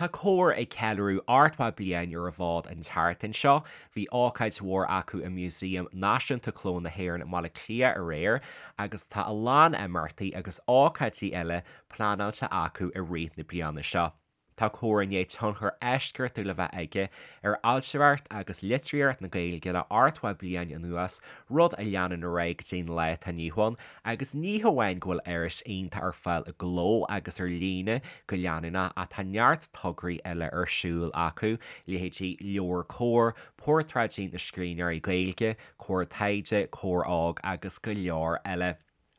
Tá Comhar ag ceiliúradh 80 bliain ar an bhfód an tseachtain seo. Bhí ócáid mhór acu i Músaem Náisiúnta Cló na hÉireann i mBaile Átha Cliath aréir agus tá a lán imeachtaí agus ócáidí eile pleanáilte acu i rith na bliana seo. Tá Comhar i ndiaidh tionchar eisceachtúil a bheith aige ar fhoilsitheoireacht agus litríocht na Gaeilge le 80 bliain anuas, rud a leanann ar aghaidh go dtí an lá atá inniu ann, agus ní hamháin go bhfuil iris iontach ar fáil i gcló agus ar líne go leanúnach ach tá neart tograí eile ar siúl acu, leithéidí Leabhar Comhar, Portráidí na Scríbhneoirí Gaeilge, Comhar Taighde, Comhar Óg agus go leor eile.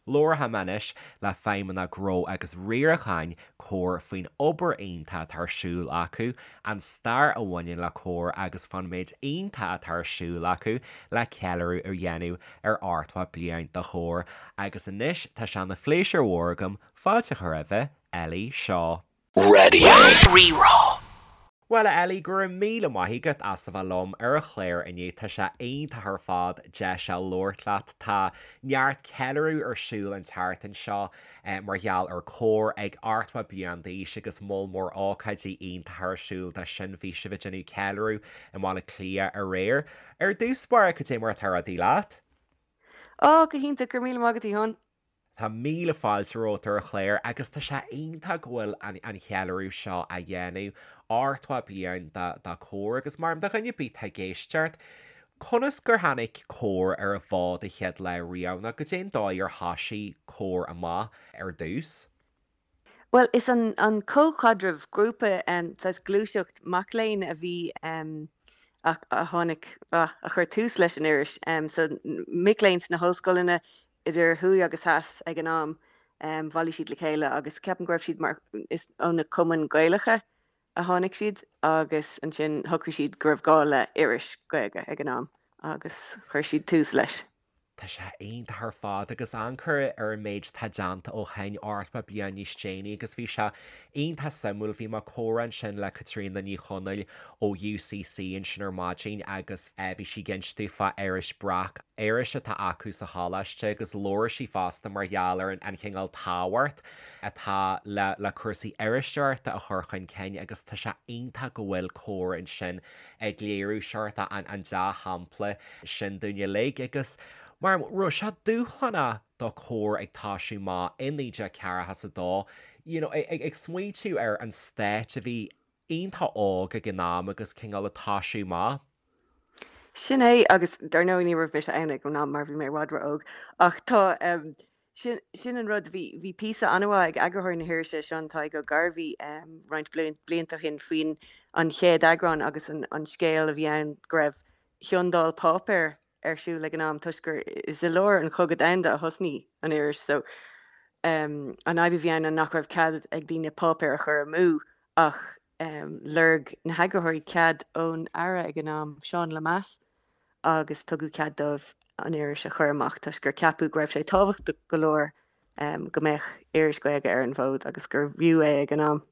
Labharfaidh mé anois le Feidhmeannach Gnó agus Riaracháin Comhar faoin obair iontach atá ar siúl acu, an stair a bhaineann le Comhar agus fán méid iontach atá ar siúl acu le ceiliúradh a dhéanamh ar 80 bliain de Chomhar. Agus anois tá sé ina phléisiúr mhór agam fáilte a chur roimhe, Ellie Shaw. Raidió Rí-Rá. Bhuel, a Ellie, go raibh míle maith agat as a bheith liom ar an chlár inniu. Tá sé iontach ar fad deis a labhairt leat. Tá neart ceiliúradh ar siúl an tseachtain seo mar gheall ar Comhar ag 80 bliain d'aois agus moll mór ócáidí iontacha ar siúl dó sin. Bhí sibh ag déanamh ceiliúradh i mBaile Átha Cliath aréir. Ar dtús báire, cad é mar atá rudaí leat? Ó, go hiontach, go raibh míle maith agat, a Sheáin. Tá míle fáilte romhat ar an chlár agus tá sé iontach go bhfuil an cheiliúradh seo á dhéanamh, 80 bliain de Comhar agus mar do dhuine ar bith atá ag éisteacht, conas gur tháinig Comhar ar an bhfód an chéad lá riamh nó goidé an dóigh ar thoisigh Comhar amach ar dtús? Bhuel, is an an Comhchaidreamh, grúpa, saghas gluaiseacht mac léinn a bhí a tháinig, a chuir tús leis an iris. So mic léinn sna hollscoileanna idir thuaidh agus theas ag an am, bhailigh siad le chéile agus ceapaim go raibh siad mar, is ó na cumainn Gaelacha a tháinig siad agus ansin shocraigh siad go raibh gá le iris Gaeilge ag an am agus chuir siad tús leis. Tá sé iontach ar fad agus amharc ar an méid atá déanta ó shin, 80 bliain níos déanaí agus bhí sé iontach suimiúil, bhí mé ag comhrá ansin le Caitríona Ní Chonaill ó UCC ansin ar maidin agus bhí sí ag inst domh fá iris Breac, iris atá acu sa choláiste agus labhair sí fosta mar gheall ar an chineál tábhacht atá le le cúrsaí iriseoireachta a chur chun cinn agus tá sé iontach go bhfuil Comhar ansin ag léiriú seort an dea-shampla sin dúinn uilig agus mar raibh sé dúshlánach do Comhar ag toisiú amach i 1942, you know, ag smaointiú ar an stát a bhí iontach óg ag an am agus cineál ag toisiú amach. Sin é, agus dar ndóigh ní raibh mise ann ag an am mar bhí mé i bhfad ró-óg, ach tá, Sin, sin an rud. Bhí, bhí píosa an-mhaith ag eagarthóir na hirise, Seán Tadhg Ó Gairbhí, roinnt blianta ó shin faoin an chéad eagrán agus an, an scéal a bhí ann go raibh ciondáil páipéir ar siúl ag an am toisc gur is i lár an Chogadh Domhanda a thosnaigh an iris so an fhadhb a bhí ann ná nach raibh cead ag daoine páipéar a chur amú ach lorg na heagarthóirí cead ón Aire ag an am, Seán Lemass, agus tugadh cead dóibh an iris a chur amach toisc gur ceapadh go raibh sé tábhachtach go leor go mbeadh iris Ghaeilge ar an bhfód agus gurbh fhiú é ag an am.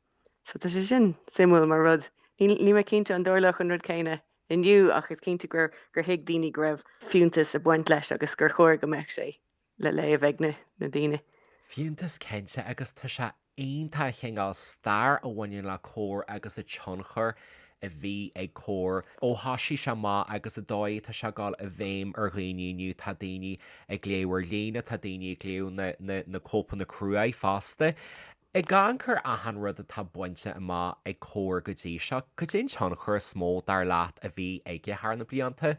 So tá sé sin suimiúil mar rud. Níl mé cinnte an dtarlódh an rud céanna inniu ach is cinnte gur gur thuig daoine go raibh fiúntas ag baint leis agus gur chóir go mbeadh sé le léamh ag na daoine. Fiúntas cinnte agus tá sé iontach an cineál stair a bhaineann le Comhar agus an tionchar a bhí ag Comhar ó thoisigh sé amach agus an dóigh atá sé ag dul i bhfeidhm ar dhaoine inniu. Tá daoine ag léamh ar líne, tá daoine ag léamh na, na, na cóipeanna cruaidh fosta. Ag amharc ar achan rud atá bainte amach ag Comhar go dtí seo, cad é an tionchar is mó, dar leat, a bhí aige thar na blianta?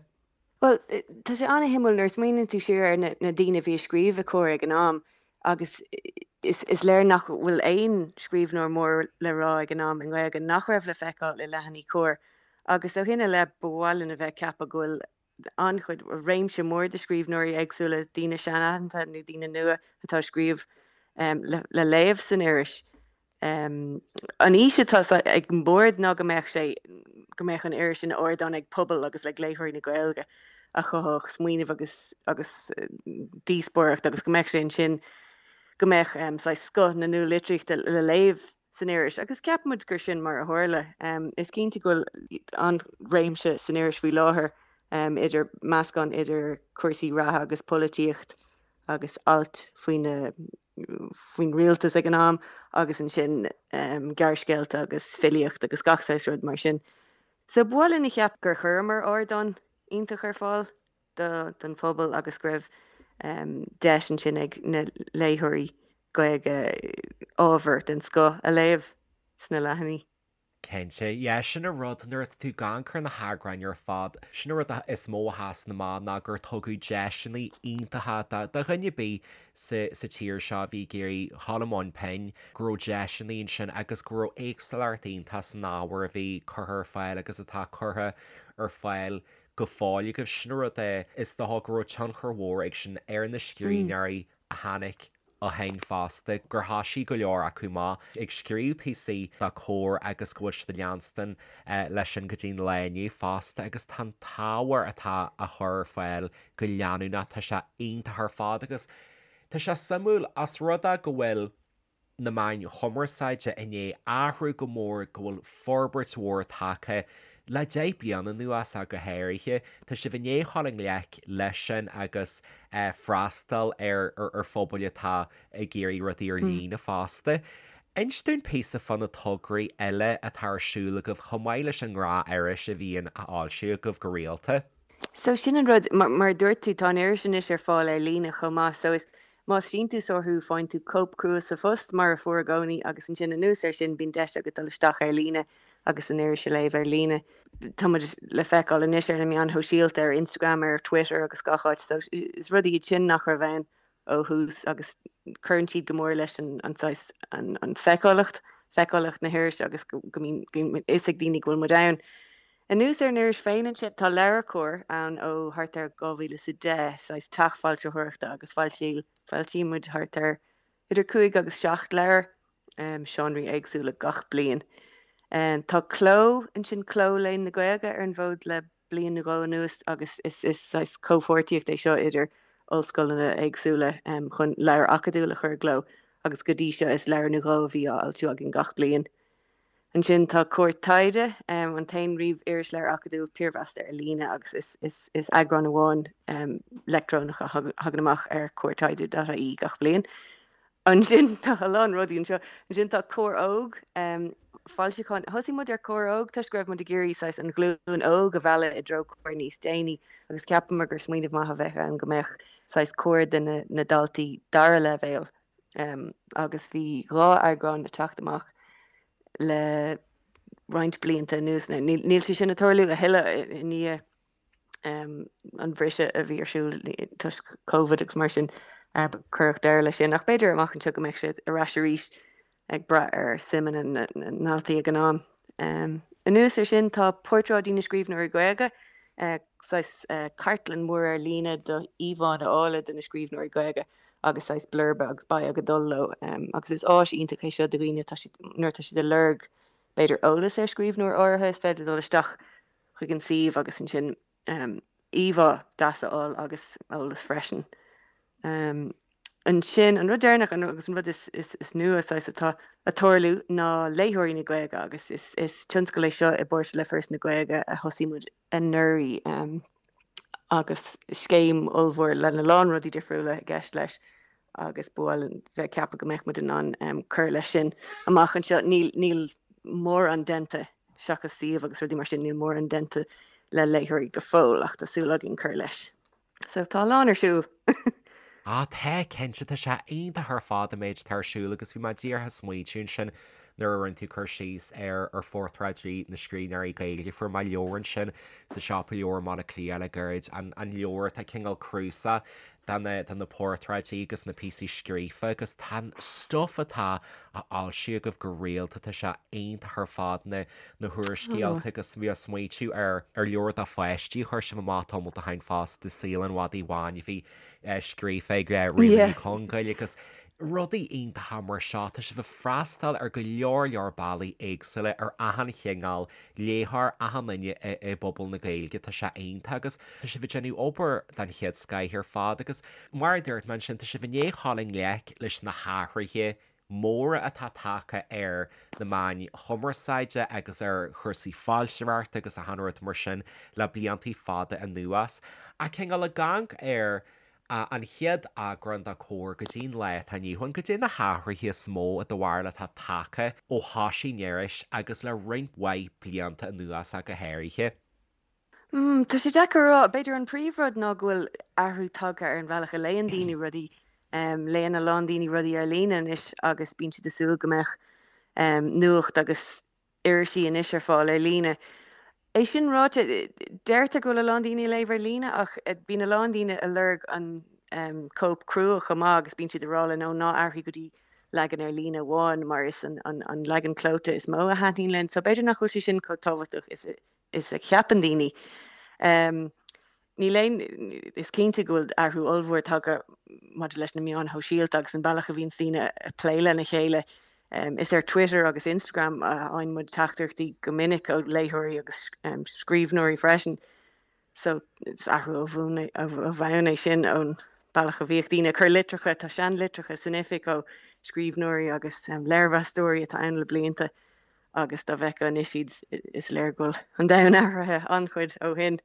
Bhuel, tá sé an-shuimiúil nuair a smaoiníonn tú siar ar na daoine a bhí ag scríobh i Comhar ag an am agus is léir nach bhfuil aon scríbhneoir mór le rá ag an am i nGaeilge nach raibh le feiceáil i leathanaigh Comhar agus ó shin i leith ba mhaith linn a bheith ag ceapadh go bhfuil an-chuid, réimse mór de scríbhneoirí éagsúla, daoine sean-aitheanta nó daoine nua atá ag scríobh le léamh san iris. An fhís atá ag an mbord ná go mbeadh sé, go mbeadh an iris ina ardán ag pobal agus ag léitheoirí na Gaeilge a chothódh smaoineamh agus agus díospóireacht agus go mbeadh sé ansin, go mbeadh saghas scoth na nualitríochta le léamh san iris agus ceapaimid gur sin mar a tharla. Is cinnte go bhfuil an-réimse san iris faoi láthair idir meascán idir cúrsaí reatha agus polaitíocht agus ailt faoi na. faoin rialtas ag an am agus ansin gearrscéalta agus filíocht agus gach saghas rud mar sin. So ba mhaith linn a cheap gur chuireamar ardán iontach ar fáil don phobal agus go raibh deis ansin ag na léitheoirí Gaeilge ábhar den scoth a léamh sna leathanaigh. Cinnte, yeah, sin an rud, nuair atá tú ag amharc ar na heagráin ar fad, sin an rud is mó a sheasann amach ná gur tugadh deiseanna iontacha do dhuine ar bith sa sa tír seo a bhí ag iarraidh dhul i mbun pinn, go raibh deiseanna ansin agus go raibh éagsúlacht iontach san ábhar a bhí curtha ar fáil agus atá curtha ar fáil go fóill agaibh. Sin an rud é, is dócha go raibh tionchar mhór ag sin ar na scríbhneoirí a tháinig ó shin fosta, gur thoisigh go leor acu amach ag scríobh píosaí do Comhar agus go bhfuil siad ag leanstan leis sin go dtí an lá inniu fosta agus tá an t-ábhar atá á chur ar fáil go leanúnach, tá sé iontach ar fad agus tá sé suimiúil os rud é go bhfuil na meáin chumarsáide i ndiaidh athrú go mór, go bhfuil forbairt mhór tagtha le 10 bliana anuas ach go háirithe. Tá sibh i ndiaidh dhul i ngleic leis sin agus freastal ar ar phobail atá ag iarraidh rudaí ar líne fosta. Inis dúinn píosa fá na tograí eile atá ar siúl agaibh chomh maith leis an ngnáth-iris a bhíonn á fhoilsiú agaibh go rialta. So sin an rud, mar a dúirt tú, tá an iris anois ar fáil ar líne chomh maith so is Más síntiúsóir thú, faigheann tú cóip crua sa phost, mar a fuair i gcónaí, agus ansin anuas air sin bíonn deis agat dul isteach ar líne agus an iris a léamh ar líne. Tá muid le feiceáil anois ar na meáin shóisialta, ar Instagram, ar Twitter agus gach áit, so is rudaí iad sin nach raibh ann ó thús agus cuireann siad go mór leis an saghas, an feiceálacht, feiceálacht na hirise agus go mbíonn fhios ag daoine go bhfuil muid ann. Anuas ar an iris féin ansin, tá LeabhairCOMHAR ann ó thart ar 2010, saghas teach foilsitheoireachta agus foilsíonn muid thart ar idir 5 agus 7 leabhar, seánraí éagsúla gach bliain. Tá Cló ansin, Cló Léann na Gaeilge, ar an bhfód le bliain nó dhó anuas agus is saghas comhpháirtíocht é seo idir ollscoileanna éagsúla chun leabhar acadúil a chur i gcló agus go dtí seo is leabhar nó dhó a bhí á fhoilsiú againn gach bliain. Ansin tá Comhar Taighde, an t-aon ríomh-irisleabhar acadúil piarmheasta ar líne agus is eagrán amháin leictreonach a thagann amach ar comhartaighde.ie gach bliain. Ansin tá a lán rudaí anseo. Ansin tá Comhar Óg, foilseachán. Thosaigh muid ar Comhar Óg toisc go raibh muid ag iarraidh saghas an ghlúin óg a mhealladh i dtreo Comhar níos déanaí agus cheapamar gur smaoineamh maith a bheadh ann go mbeadh saghas Comhar do na daltaí dara leibhéal. agus bhí 2 eagrán ag teacht amach le roinnt blianta anuas. Now níl sé sin ag tarlú a thuilleadh i ndiaidh an bhriseadh a bhí ar siúl toisc Covid agus mar sin, cuireadh deireadh leis sin ach b'fhéidir amach anseo go mbeidh sé ar ais arís ag brath ar suimeanna na ndaltaí ag an am. Anuas ar sin tá Portráidí na Scríbhneoirí Gaeilge, saghas cartlann mhór ar líne de íomhánna áille de na scríbhneoirí Gaeilge agus saghas blurba agus bio ag dul leo agus is áis iontach é seo do dhaoine atá siad, nuair atá siad ag lorg b'fhéidir eolas ar scríbhneoir áirithe is féidir dul isteach chuig an suíomh agus ansin íomhá deas a fháil agus eolas freisin. Ansin an rud deireanach agus an rud is, is, is nua saghas atá ag tarlú ná Léitheoirí na Gaeilge agus is, is tionscal é seo i bpáirt le Foras na Gaeilge a thosaigh muid anuraidh agus scéim ollmhór lena lán rudaí difriúla i gceist leis agus ba mhaith linn bheith ag ceapadh go mbeadh muid in ann cur leis sin amach anseo. Níl, níl mórán déanta seachas suíomh agus rudaí mar sin, níl mórán déanta le léitheoirí go fóill ach tá súil againn cur leis. So tá a lán ar siúl. Ah tá, cinnte, tá sé iontach ar fad an méid atá ar siúl agus bhí mé díreach ag smaointiú ansin nuair a rinne tú cur síos ar ar phortráidí na scríbhneoirí Gaeilge. Fuair mé leabhar ansin sa siopa leabhar i mBaile Átha Cliath le gairid, an an leabhar atá cineál cnuasach de na de na portráidí agus na píosaí scríofa agus tá an stuif atá á fhoilsiú agaibh go rialta, tá sé iontach ar fad na na húrscéalta agus bhí mé ag smaointiú ar ar leabhar do pháistí a chuir sibh amach tamall ó shin fosta, Saol an Mhadaidh Bháin a bhí scríofa ag Ríona Ní Chonghaill agus rudaí iontacha mar seo. Tá sibh ag freastal ar go leor leor bealaí éagsúla ar achan chineál léitheoir, achan duine i bpobal na Gaeilge. Tá sé iontach agus tá sibh ag déanamh obair den chéad scoith ar fad agus mar a dúirt mé ansin, tá sibh i ndiaidh dhul i ngleic leis na hathruithe móra atá tagtha ar na meáin chumarsáide agus ar chúrsaí foilsitheoireachta agus achan rud mar sin le bliantaí fada anuas. Ach cineál ag amharc ar An chéad eagrán de Comhar go dtí an lá atá inniu ann, goidé na hathruithe is mó i do bharúil atá tagtha ó thosaigh an iris agus le roinnt mhaith blianta anuas ach go háirithe. Tá sé deacair a rá. B'fhéidir an príomhrud ná go bhfuil athrú tagtha ar an bhealach a léann daoine rudaí. Léann a lán daoine rudaí ar líne anois agus bíonn siad ag súil go mbeadh nuacht agus irisí anois ar fáil ar líne. É sin ráite, deirtear go bhfuil a lán daoine ag léamh ar líne ach bíonn a lán daoine ag lorg an cóip crua chomh maith agus bíonn siad ag rá linn, ó ná athraigh go dtí leagan ar líne amháin mar is an leagan clóite is mó a thaitníonn linn. So b'fhéidir nach bhfuil sé sin chomh tábhachtach is a cheapann daoine. Níl aon, is cinnte go bhfuil athrú ollmhór tagtha maidir leis na meáin shóisialta agus an bealach a bhíonns daoine ag plé lena chéile. Is ar Twitter agus Instagram a fhaigheann muid teachtaireachtaí go minic ó léitheoirí agus scríbhneoirí freisin. So is athrú ó bhonn é sin ón bealach a bhíodh daoine ag cur litreacha, tá seanlitreacha san oifig ó scríbhneoirí agus léirmheastóirí atá ann le blianta agus dá bhfeicfeá anois iad is léir go bhfuil an domhan athraithe an-chuid ó shin.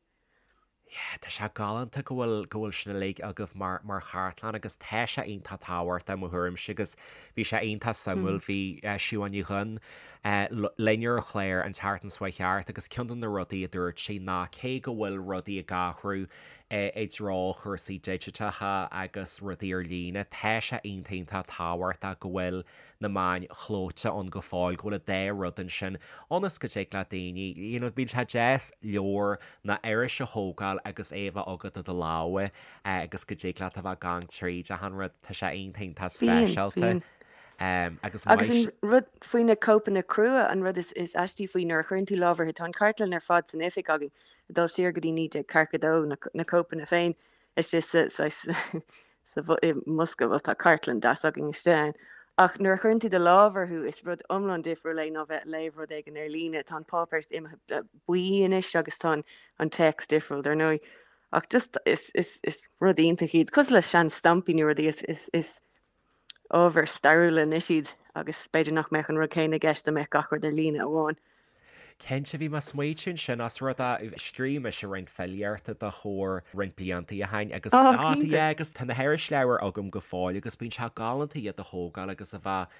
Yeah, tá sé galánta go bhfuil, go bhfuil sin uilig agaibh mar, mar chartlann agus tá sé iontach tábhachtach i mo thuairimse agus bhí sé iontach suimiúil, bhí Siobhán Ní Dhuinn linn ar an chlár an tseachtain seo chuaigh thart agus ceann de na rudaí a dúirt sí ná cé go bhfuil rudaí ag athrú i dtreo chúrsaí digiteacha agus rudaí ar líne, tá sé iontach iontach tábhachtach go bhfuil na meáin chlóite ann go fóill, go bhfuil an dá rud ansin, ionas go dtig le daoine, you know, bíonn sé deas leabhar nó iris a thógáil agus é a bheith agat i do lámha agus go dtig leat a bheith ag amharc tríd achan rud, tá sé iontach iontach Bíonn, speisialta. bíonn. Agus Agus maith. an rud faoi na cóipeanna crua, an rud is is aistí faoi nuair a chuireann tú lámh orthu, tá an chartlann ar fad san oifig againn, ag dul siar go dtí 1942, na na cóipeanna féin istigh sa saghas sa i mbosca, bhuel tá cartlann deas againn istigh ann, ach nuair a chuireann tú do lámh orthu is rud iomlán difriúil é ná bheith ag léamh rud éigin ar líne. Tá an páipéar imithe buí anois agus tá an téacs difriúil dar ndóigh. Ach just is is is rud iontach iad, cosúil le sean stampaí nó rudaí is is is ábhar stairiúla anois iad agus b'fhéidir nach mbeadh an rud céanna i gceist dá mbeadh gach rud ar líne amháin. Cinnte, bhí mé ag smaoitiú ansin ós rud é, scríobh mise roinnt filíochta do Chomhar roinnt blianta ó shin agus, Ó, ah, cinnte. yeah, agus tá na hirisleabhair agam go fóill agus bíonn sé galánta iad a thógáil agus a bheith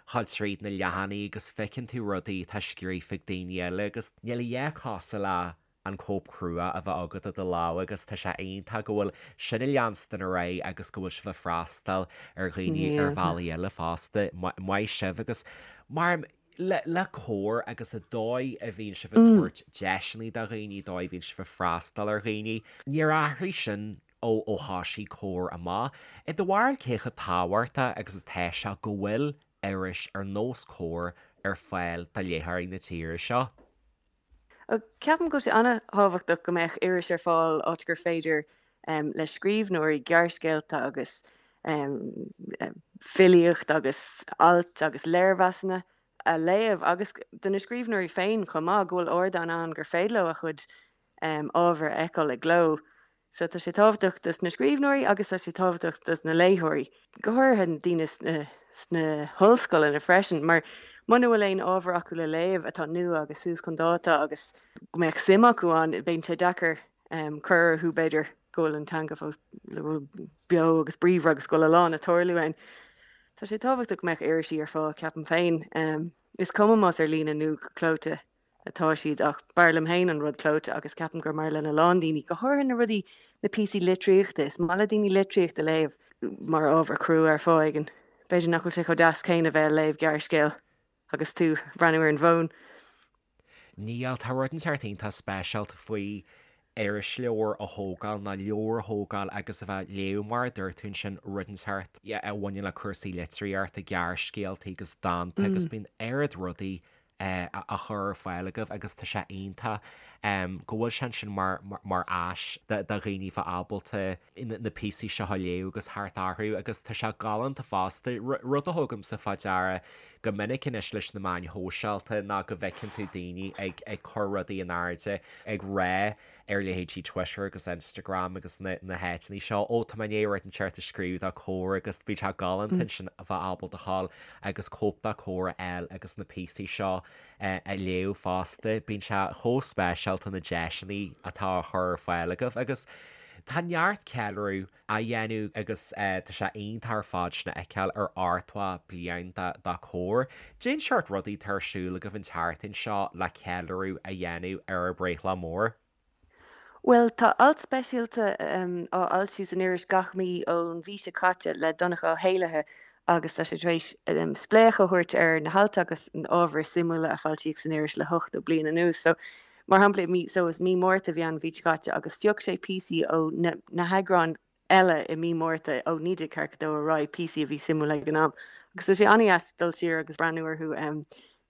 ag dul tríd na leathanaigh agus feiceann tú rudaí atá scríofa ag daoine eile agus níl a dhath cosúil le an cóip chrua a bheith agat i do lámha agus tá sé iontach go bhfuil sin ag leanstan ar aghaidh agus go bhfuil sibh ag freastal ar dhaoine ar bhealaí eile fosta. Maith sibh agus mar le le Comhar agus an dóigh a bhíonn sibh ag tabhairt deiseanna do dhaoine, dóigh a bhíonn sibh ag freastal ar dhaoine, níor athraigh sin ó ó thosaigh Comhar amach. I do bharúil cé chomh tábhachtach agus atá sé go bhfuil iris ar nós Comhar ar fáil do léitheoirí na tíre seo? Ceapaim go bhfuil sé an-thábhachtach go mbeadh iris ar fáil áit gur féidir le scríbhneoirí gearrscéalta agus filíocht agus ailt agus léirmheasanna a léamh agus do na scríbhneoirí féin chomh maith, go bhfuil ardán ann gur féidir leo a chuid ábhair a fheiceáil i gcló. So tá sé tábhachtach dos na scríbhneoirí agus tá sé tábhachtach dos na léitheoirí, go háirithe na daoine sna sna hollscoileanna freisin, mar muna bhfuil aon ábhar acu le léamh atá nua agus suas chun dáta agus go mbeadh suim acu ann, bíonn sé deacair cur orthu b'fhéidir go bhfuil an teanga fós beo agus bríomhar agus go bhfuil a lán ag tarlú ann. Tá sé tábhachtach go mbeadh irisí ar fáil, ceapaim féin. Is cuma más ar líne nó go clóite. atá siad ach b'fhearr liom féin an rud clóite agus ceapaim gur mar lena lán daoine, go háirithe na rudaí, na píosaí litríochta, is maith le daoine litríocht a léamh mar ábhar crua ar fáth éigin. B'fhéidir nach bhfuil sé chomh deas céanna bheith ag léamh gearrscéal agus tú ag breathnú ar an bhfón. Níl, tá rud inteacht iontach speisialta faoi irisleabhar a thógáil nó leabhar a thógáil agus a bheith ag léamh mar a dúirt tú ansin rud inteacht a bhaineann le cúrsaí litríochta, gearrscéalta agus dánta agus bíonn oiread rudaí á chur ar fáil agaibh agus tá sé iontach go bhfuil sé ansin mar mar áis do dhaoine bheith ábalta na píosaí seo a léamh agus theacht orthu agus tá sé galánta fosta. Rud a thugaimse fá deara go minic anois leis na meáin shóisialta ná go bhfeiceann tú daoine ag ag cur rudaí in airde ag rá ar leithéidí Twitter agus Instagram agus na na háiteanna seo, ó tá mé i ndiaidh rud inteacht a scríobh do Comhar agus bhí sé galánta ansin a bheith ábalta a ghabháil agus cóip de Comhar a fháil agus na píosaí seo a léamh fosta. Bíonn sé chomh speisialta na deiseanna atá á chur ar fáil agaibh agus. Tá neart ceiliúradh á dhéanamh agus tá sé iontach ar fad sin a fheiceáil ar ochtmhadh bliain de Comhar. Cén seort rudaí atá ar siúl agaibh an tseachtain seo le ceiliúradh a dhéanamh ar bhur mbreithlá mór? Bhuel, tá alt speisialta á fhoilsiú san iris gach mí ón mhí seo caite le Donncha Ó hÉallaithe agus tá sé tar éis spléachadh a thabhairt ar na hailt agus an ábhar is suimiúla a foilsíodh san iris le 80 bliain anuas. So, mar shampla, i mí, so is mí Márta a bhí ann an mhí seo caite agus phioc sé píosaí ó na heagráin eile i mí Márta ó 1942 ar aghaidh, píosaí a bhí suimiúil ag an am. Agus tá sé an-dheas dul siar agus breathnú orthu.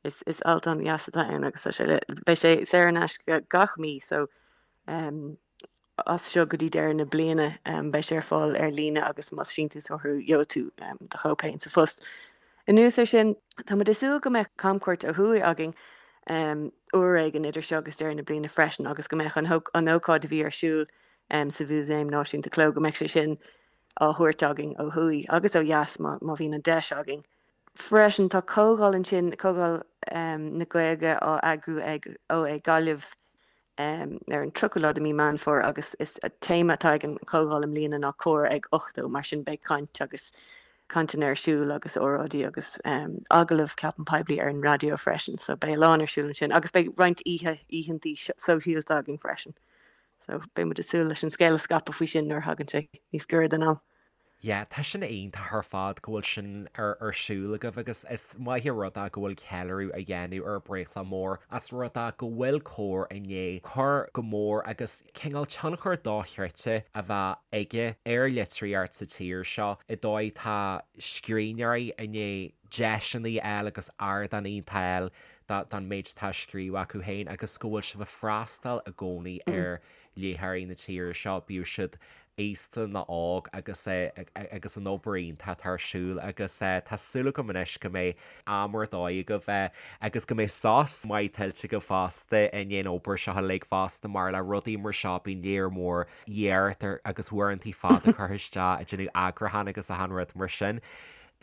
Is is alt an-dheas atá ann agus tá sé le, beidh sé saor in aisce gach mí so as seo go dtí deireadh na bliana beidh sé ar fáil ar líne agus más síntiúsóir thú gheobhaidh tú do chóip féin sa phost. Anuas air sin, tá muid ag súil go mbeidh camchuairt ó thuaidh againn uair éigin idir seo agus deireadh na bliana freisin agus go mbeidh an ócáid a bhí ar siúl sa Mhúsaem Náisiúnta Cló, go mbeidh sé sin á thabhairt againn ó thuaidh agus ó dheas má bhíonn an deis againn. Freisin, tá comhdháil ansin, Comhdháil na Gaeilge á eagrú ag OÉ Gaillimh ar an 30ú lá de mí Meán Fómhair agus is téama atá ag an chomhdháil i mbliana ná Comhar ag 80, mar sin beidh caint agus cainteanna ar siúl agus óráidí agus agallaimh ceapaim poiblí ar an raidió freisin so beidh a lán ar siúl ansin agus beidh roinnt oíche, oícheantaí sóisialta againn freisin. So beidh muid ag súil leis an scéal a scaipeadh faoi sin nuair a thagann sé níos gaire don am. Yeah, tá sin iontach ar fad go bhfuil sin ar ar siúl agaibh agus is maith an rud é go bhfuil ceiliúradh á dhéanamh ar breithlá mór as rud é go bhfuil Comhar i ndiaidh cur go mór agus cineál tionchar dochreidte a bheith aige ar litríocht sa tír seo i dóigh tá scríbhneoirí i ndiaidh deiseanna a fháil agus ardán iontach a fháil don méid atá á scríobh acu féin agus go bhfuil sibh ag freastal i gcónaí ar léitheoirí na tíre seo, bíodh siad aosta nó óg agus agus an obair iontach atá ar siúl agus tá súil agam anois go mbeidh am ar dóigh agaibh agus go mbeidh sos maith tuillte agaibh fosta i ndiaidh an obair seo uilig fosta mar le rudaí mar seo bíonn léar mór iarracht agus uaireantaí fada curtha isteach ag déanamh eagrúchán agus achan rud mar sin.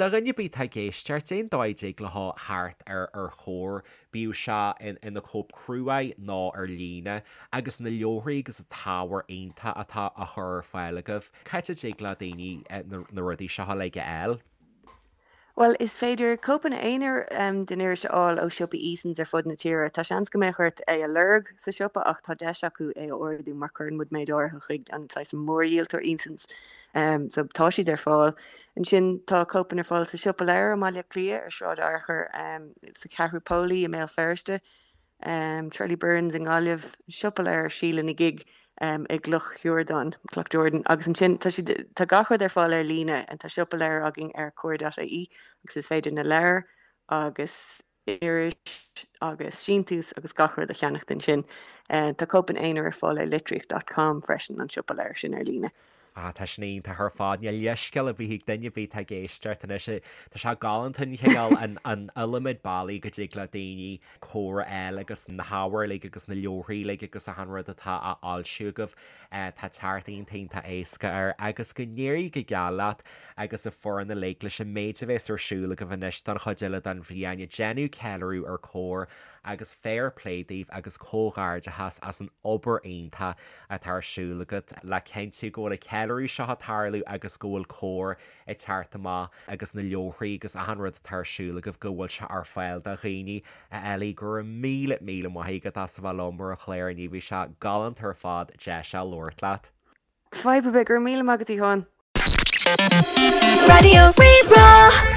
Do dhuine ar bith atá ag éisteacht, cén dóigh a dtig leo theacht ar ar Chomhar, bíodh sé ina cóip cruaidh nó ar líne, agus na leabharthaí agus an t-ábhar iontach atá á chur ar fáil agaibh, cá háit a dtig le daoine na rudaí seo uilig a fháil? Bhuel, is féidir cóipeanna aonair den iris a fháil ó siopaí Easons ar fud na tíre. Tá seans go mbeadh ort é a lorg sa siopa ach tá deis acu é a ordú mar cuireann muid méid áirithe chuig an saghas mórdhíoltóir Easons. So tá siad ar fáil. Ansin tá cóipeanna ar fáil sa Siopa Leabhar i mBaile Átha Cliath, ar Sráid Fhearchair, sa Cheathrú Póilí i mBéal Feirste, Charlie Byrne's i nGaillimh, Siopa Leabhar Síle na Gig i gCloch Shiurdáin, Cloughjordan. Agus ansin tá siad, tá gach rud ar fáil ar líne. Tá siopa leabhar againn ar comhar.ie agus is féidir na leabhair agus iris agus síntiús agus gach rud a cheannacht ansin. Tá cóipeanna aonair ar fáil ar litríocht dot com freisin, an siopa leabhar sin ar líne. Ah, tá sin iontach ar fad. Níl leithscéal ar bith ag duine ar bith atá ag éisteacht anois. Tá sé galánta an chineál, an iliomad bealaí go dtig le daoine Comhar a fháil agus na hábhair uilig agus na leabharthaí uilig agus achan rud atá á fhoilsiú agaibh. Tá teacht iontach iontach éasca air agus go n-éirí go geal leat agus an foireann uilig leis an méid a bhéas ar siúl agaibh anois don chuid eile den bhliain ag déanamh ceiliúradh ar Comhar agus fair play daoibh agus comhghairdeachas as an obair iontach atá ar siúl agat le cinntiú go bhfuil an ceiliúradh seo ag tarlú agus go bhfuil Comhar ag teacht amach agus na leabharthaí agus achan rud atá ar siúl agaibh go bhfuil sé ar fáil do dhaoine. A Ellie, go raibh míle míle maith agat as a bheith liom ar an chlár inniu, bhí sé galánta ar fad deis a labhairt leat. Fadhb ar bith, go raibh míle maith agat a Sheáin. Raidió Rí-Rá.